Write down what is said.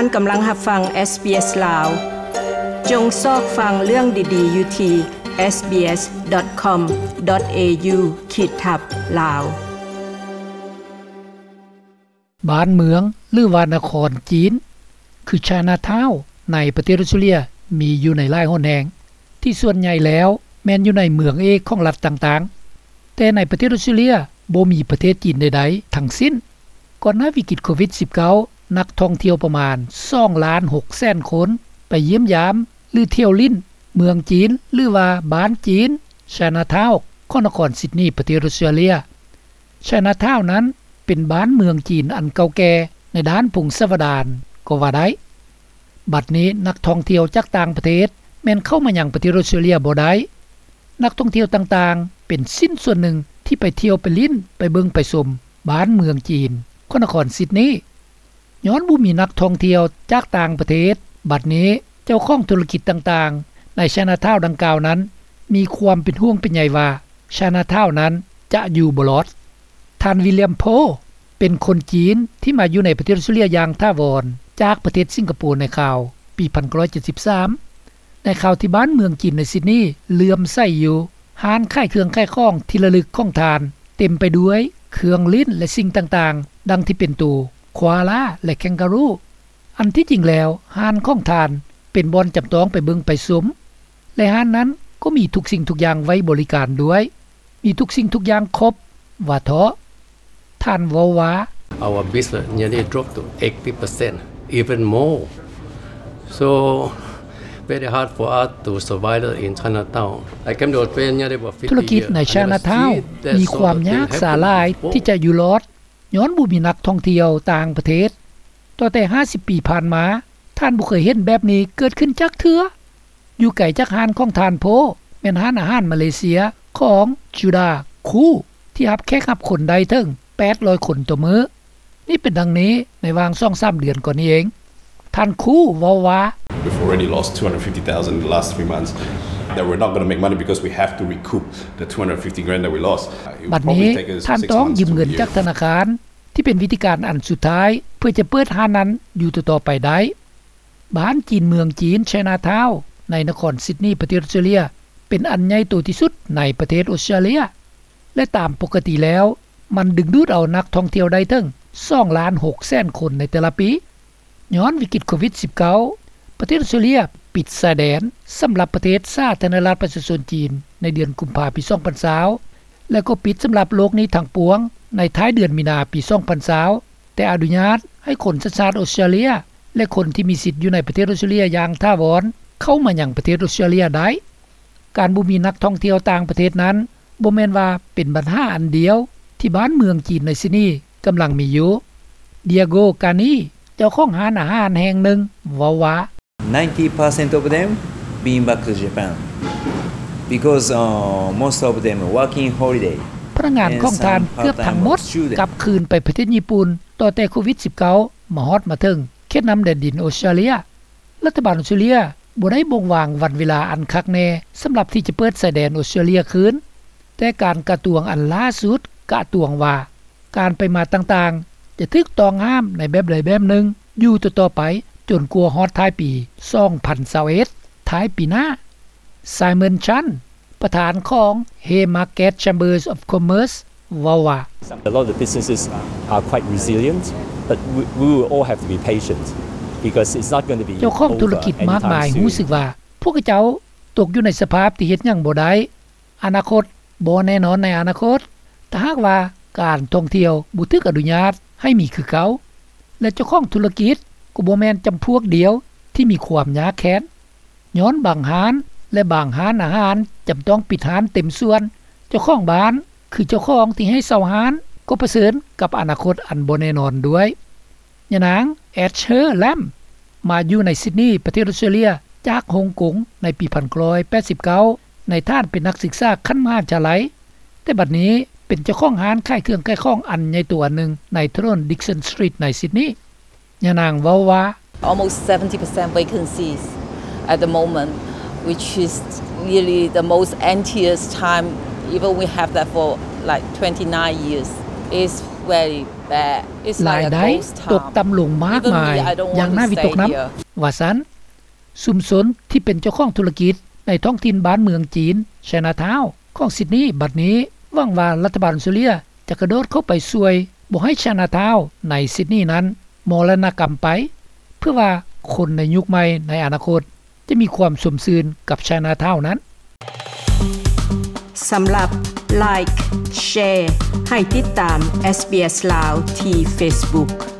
ທ່ານກຳລັງຮັບຟັງ ເອສບີເອສ ລາວ. ຈົ່ງຊອກຟັງເລື່ອງດີໆຢູ່ທີ່ ເອສບີເອສ ດອດ ຄອມ ດອດ ເອຢູ ຂີດທັບ ລາວ. ບ້ານເມືອງ ຫຼືວ່ານະຄອນຈີນ ຄື Chinatown ໃນປະເທດອົດສະຕຣາເລຍ ມີຢູ່ໃນຫຼາຍຫົນແຫ່ງ ທີ່ສ່ວນໃຫຍ່ແລ້ວແມ່ນຢູ່ໃນເມືອງເອກຂອງລັດຕ່າງໆ. ແຕ່ໃນປະເທດອົດສະຕຣາເລຍບໍ່ມີປະເທດຈີນໃດໆທັງສິ້ນ. ກ່ອນໜ້າວິກິດໂຄວິດສິບເກົ້າ ນັກທ່ອງທ່ຽວປະມານສອງລ້ານຫົກແສນຄົນ ໄປຢ້ຽມຢາມ ຫຼື ທ່ຽວຫຼິ້ນເມືອງຈີນ ຫຼືວ່າບ້ານຈີນ Chinatown ຂອງນະຄອນຊິດນີ ປະເທດອົດສະຕຣາເລຍ. Chinatown ນັ້ນເປັນບ້ານເມືອງຈີນອັນເກົ່າແກ່ໃນດ້ານພົງສາວະດານກໍວ່າໄດ້. ບັດນີ້ນັກທ່ອງທ່ຽວຈາກຕ່າງປະເທດແມ່ນເຂົ້າມາຍັງປະເທດອົດສະຕຣາເລຍບໍ່ໄດ້. ນັກທ່ອງທ່ຽວຕ່າງໆເປັນຊິ້ນສ່ວນໜຶ່ງທີ່ໄປທ່ຽວໄປຫຼິ້ນໄປເບິ່ງໄປຊົມບ້ານເມືອງຈີນຂອງນະຄອນຊິດນີ. ຍ້ອນບໍ່ມີນັກທ່ອງທ່ຽວຈາກຕ່າງປະເທດ, ບັດນີ້ເຈົ້າຂອງທຸລະກິດຕ່າງໆໃນ Chinatown ດັ່ງກ່າວນັ້ນ ມີຄວາມເປັນຫ່ວງເປັນໃຍວ່າ Chinatown ນັ້ນຈະຢູ່ບໍ່ລອດ. ທ່ານ William Poh ເປັນຄົນຈີນທີ່ມາຢູ່ໃນປະເທດອົດສະຕຣາເລຍຢ່າງຖາວອນ ຈາກປະເທດສິງກະໂປໃນຄາວປີໜຶ່ງພັນເກົ້າຮ້ອຍເຈັດສິບສາມ ໃນຄາວທີ່ບ້ານເມືອງຈີນໃນຊິດນີເຫຼື້ອມໃສຢູ່. ຮ້ານຂາຍເຄື່ອງຂາຍຂອງທີ່ລະລຶກຂອງທ່ານເຕັມໄປດ້ວຍເຄື່ອງຫຼິ້ນ ແລະ ສິ່ງຕ່າງໆ ດັ່ງທີ່ເປັນໂຕ Koala ແລະ Kangaroo. ອັນທີ່ຈິງແລ້ວຮ້ານຂອງທ່ານເປັນບ່ອນຈຳຕ້ອງໄປເບິ່ງໄປຊົມ ແລະ ຮ້ານນັ້ນກໍມີທຸກສິ່ງທຸກຢ່າງໄວ້ບໍລິການດ້ວຍ, ມີທຸກສິ່ງທຸກຢ່າງຄົບ ວ່າເທາະ. ທ່ານເວົ້າວ່າ Our business nearly dropped to eighty percent, even more. So, very hard for us to survive in Chinatown. I came to Australia nearly about fifty years. ທຸລະກິດໃນ Chinatown ມີຄວາມຍາກສາຫຼາຍທີ່ຈະຢູ່ລອດ ຍ້ອນບໍ່ມີນັກທ່ອງທ່ຽວຕ່າງປະເທດ. ຕໍ່ແຕ່ຫ້າສິບປີຜ່ານມາ, ທ່ານບໍ່ເຄີຍເຫັນແບບນີ້ເກີດຂຶ້ນຈັກເທື່ອ. ຢູ່ໄກຈາກຮ້ານຂອງທ່ານໂພ ແມ່ນຮ້ານອາຫານມາເລເຊຍຂອງ Judah Khoo ທີ່ຮັບແຂກຮັບຄົນໄດ້ເຖິງແປດຮ້ອຍຄົນຕໍ່ມື້. ນີ້ເປັນດັ່ງນີ້ໃນຫວ່າງສອງສາມເດືອນກ່ອນນີ້ເອງ. ທ່ານ Khoo ເວົ້າວ່າ We've already lost two hundred fifty thousand in the last three months that we're not gonna make money because we have to recoup the two hundred fifty grand that we lost. ບັດນີ້ທ່ານຕ້ອງຢືມເງິນຈາກທະນາຄານ ທີ່ເປັນວິທີການອັນສຸດທ້າຍເພື່ອຈະເປີດຮ້ານນັ້ນຢູ່ຕໍ່ໆໄປໄດ້. ບ້ານຈີນເມືອງຈີນ Chinatown ໃນນະຄອນຊິດນີ ປະເທດອົດສະຕຣາເລຍ ເປັນອັນໃຫຍ່ໂຕທີ່ສຸດໃນປະເທດອົດສະຕຣາເລຍ ແລະ ຕາມປົກກະຕິແລ້ວ ມັນດຶງດູດເອົານັກທ່ອງທ່ຽວໄດ້ເຖິງສອງລ້ານຫົກແສນຄົນໃນແຕ່ລະປີ. ຍ້ອນວິກິດໂຄວິດສິບເກົ້າ ປະເທດອົດສະຕຣາເລຍປິດຊາຍແດນສຳລັບປະເທດສາທາລະນະລັດປະຊາຊົນຈີນໃນເດືອນກຸມພາປີສອງພັນຊາວ ແລະ ກໍປິດສຳລັບໂລກນີ້ທັງປວງໃນທ້າຍເດືອນມີນາປີສອງພັນຊາວ ແຕ່ອະນຸຍາດໃຫ້ຄົນສັນຊາດອົດສະຕຣາເລຍ ແລະ ຄົນທີ່ມີສິດຢູ່ໃນປະເທດອົດສະຕຣາເລຍຢ່າງຖາວອນເຂົ້າມາຍັງປະເທດອົດສະຕຣາເລຍໄດ້. ການບໍ່ມີນັກທ່ອງທ່ຽວຕ່າງປະເທດນັ້ນ ບໍ່ແມ່ນວ່າເປັນບັນຫາອັນດຽວທີ່ບ້ານເມືອງຈີນໃນຊິດນີກຳລັງມີຢູ່. Diego Cani ເຈົ້າຂອງຮ້ານອາຫານແຫ່ງໜຶ່ງເວົ້າວ່າ Ninety percent of them been back to Japan because, uh, most of them working holiday. ພະນັກງານຂອງທ່ານເກືອບທັງໝົດກັບຄືນໄປປະເທດຍີ່ປຸ່ນ ຕໍ່ແຕ່ໂຄວິດສິບເກົ້າມາຮອດມາເຖິງເຂດນ້ຳແດນດິນອົດສະຕຣາເລຍ. ລັດຖະບານອົດສະຕຣາເລຍບໍ່ໄດ້ບົ່ງວາງວັນເວລາອັນຄັກແນ່ສຳລັບທີ່ຈະເປີດຊາຍແດນອົດສະຕຣາເລຍຄືນ, ແຕ່ການກະຕວງອັນລ່າສຸດກະຕວງວ່າ ການໄປມາຕ່າງໆຈະຖືກຕ້ອງຫ້າມໃນແບບໃດແບບໜຶ່ງຢູ່ຕໍ່ໆໄປ ຈົນກວ່າຮອດທ້າຍປີສອງພັນຊາວເອັດ ທ້າຍປີໜ້າ. Simon Chan ປະທານຂອງ Haymarket Chambers of Commerce ເວົ້າວ່າ A lot of the businesses are quite resilient, but we, we will all have to be patient because it's not gonna be over anytime soon. ເຈົ້າຂອງທຸລະກິດມາກມາຍຮູ້ສຶກວ່າ ພວກເຂົາເຈົ້າຕົກຢູ່ໃນສະພາບທີ່ເຮັດຫຍັງບໍ່ໄດ້. ອະນາຄົດບໍ່ແນ່ນອນໃນອະນາຄົດ. ຖ້າຫາກວ່າການທ່ອງທ່ຽວບໍ່ຖືກອະນຸຍາດໃຫ້ມີຄືເກົ່າ ແລະ ເຈົ້າຂອງທຸລະກິດກໍບໍ່ແມ່ນຈຳພວກດຽວທີ່ມີຄວາມຍາກແຄ້ນ. ຍ້ອນບາງຮ້ານ ແລະ ບາງຮ້ານອາຫານຈຳຕ້ອງປິດຮ້ານເຕັມສ່ວນ, ເຈົ້າຂອງບ້ານ ຄືເຈົ້າຂອງທີ່ໃຫ້ເຊົ່າຮ້ານ ກໍປະເຊີນກັບອະນາຄົດອັນບໍ່ແນ່ນອນດ້ວຍ. ຍານາງ Asher Lam ມາຢູ່ໃນຊິດນີ ປະເທດອົດສະຕຣາເລຍ ຈາກຮົງກົງໃນປີໜຶ່ງພັນເກົ້າຮ້ອຍແປດສິບເກົ້າ ໃນຖານເປັນນັກສຶກສາຂັ້ນມະຫາວິທະຍາໄລ, ແຕ່ບັດນີ້ເປັນເຈົ້າຂອງຮ້ານຂາຍເຄື່ອງຂາຍຂອງອັນໃຫຍ່ໂຕອັນໜຶ່ງໃນຖະໜົນ Dixon Street ໃນຊິດນີ. ຍານາງເວົ້າວ່າ Almost seventy percent vacancies at the moment, which is really the most emptiest time, even we have that for, like, twenty-nine years. It's very ລາຍໄດ້ຕົກຕ່ຳລົງມາກມາຍຢ່າງໜ້າວິຕົກນຳ ວ່າຊັ້ນ. ຊຸມຊົນທີ່ເປັນເຈົ້າຂອງທຸລະກິດໃນທ້ອງຖິ່ນບ້ານເມືອງຈີນ Chinatown ຂອງຊິດນີ ບັດນີ້ຫວັງວ່າລັດຖະບານອົດສະຕຣາເລຍຈະກະໂດດເຂົ້າໄປຊ່ວຍບໍ່ໃຫ້ Chinatown ໃນຊິດນີນັ້ນມໍລະນະກຳໄປ ເພື່ອວ່າຄົນໃນຍຸກໃໝ່ໃນອະນາຄົດຈະມີຄວາມຊົມຊື່ນກັບ Chinatown ນັ້ນ. ສຳລັບ Like Share ໃຫ້ຕິດຕາມ SBS ລາວ ທີ່ Facebook.